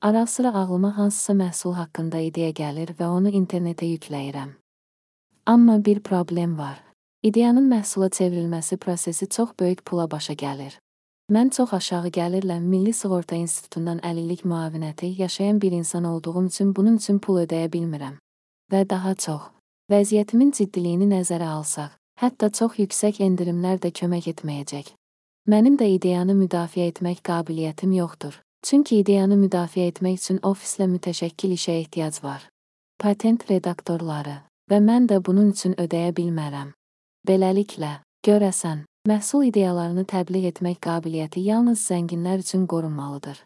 Ara sıra ağlıma hansısa məhsul haqqında ideya gəlir və onu internetə yükləyirəm. Amma bir problem var. İdeyanın məhsula çevrilməsi prosesi çox böyük pula başa gəlir. Mən çox aşağı gəlirlə Milli Sığorta İnstitutundan əlillik müavinəti yaşayan bir insan olduğum üçün bunun üçün pul ödəyə bilmirəm. Və daha çox. Vəziyyətimin ciddiliyini nəzərə alsaq, hətta çox yüksək endirimlər də kömək etməyəcək. Mənim də ideyanı müdafiə etmək qabiliyyətim yoxdur. Çünki ideyanı müdafiə etmək üçün ofislə mütəşəkkil işə ehtiyac var. Patent redaktorları və mən də bunun üçün ödəyə bilmərəm. Beləliklə, görəsən, məhsul ideyalarını təbliğ etmək qabiliyyəti yalnız zənginlər üçün qorunmalıdır.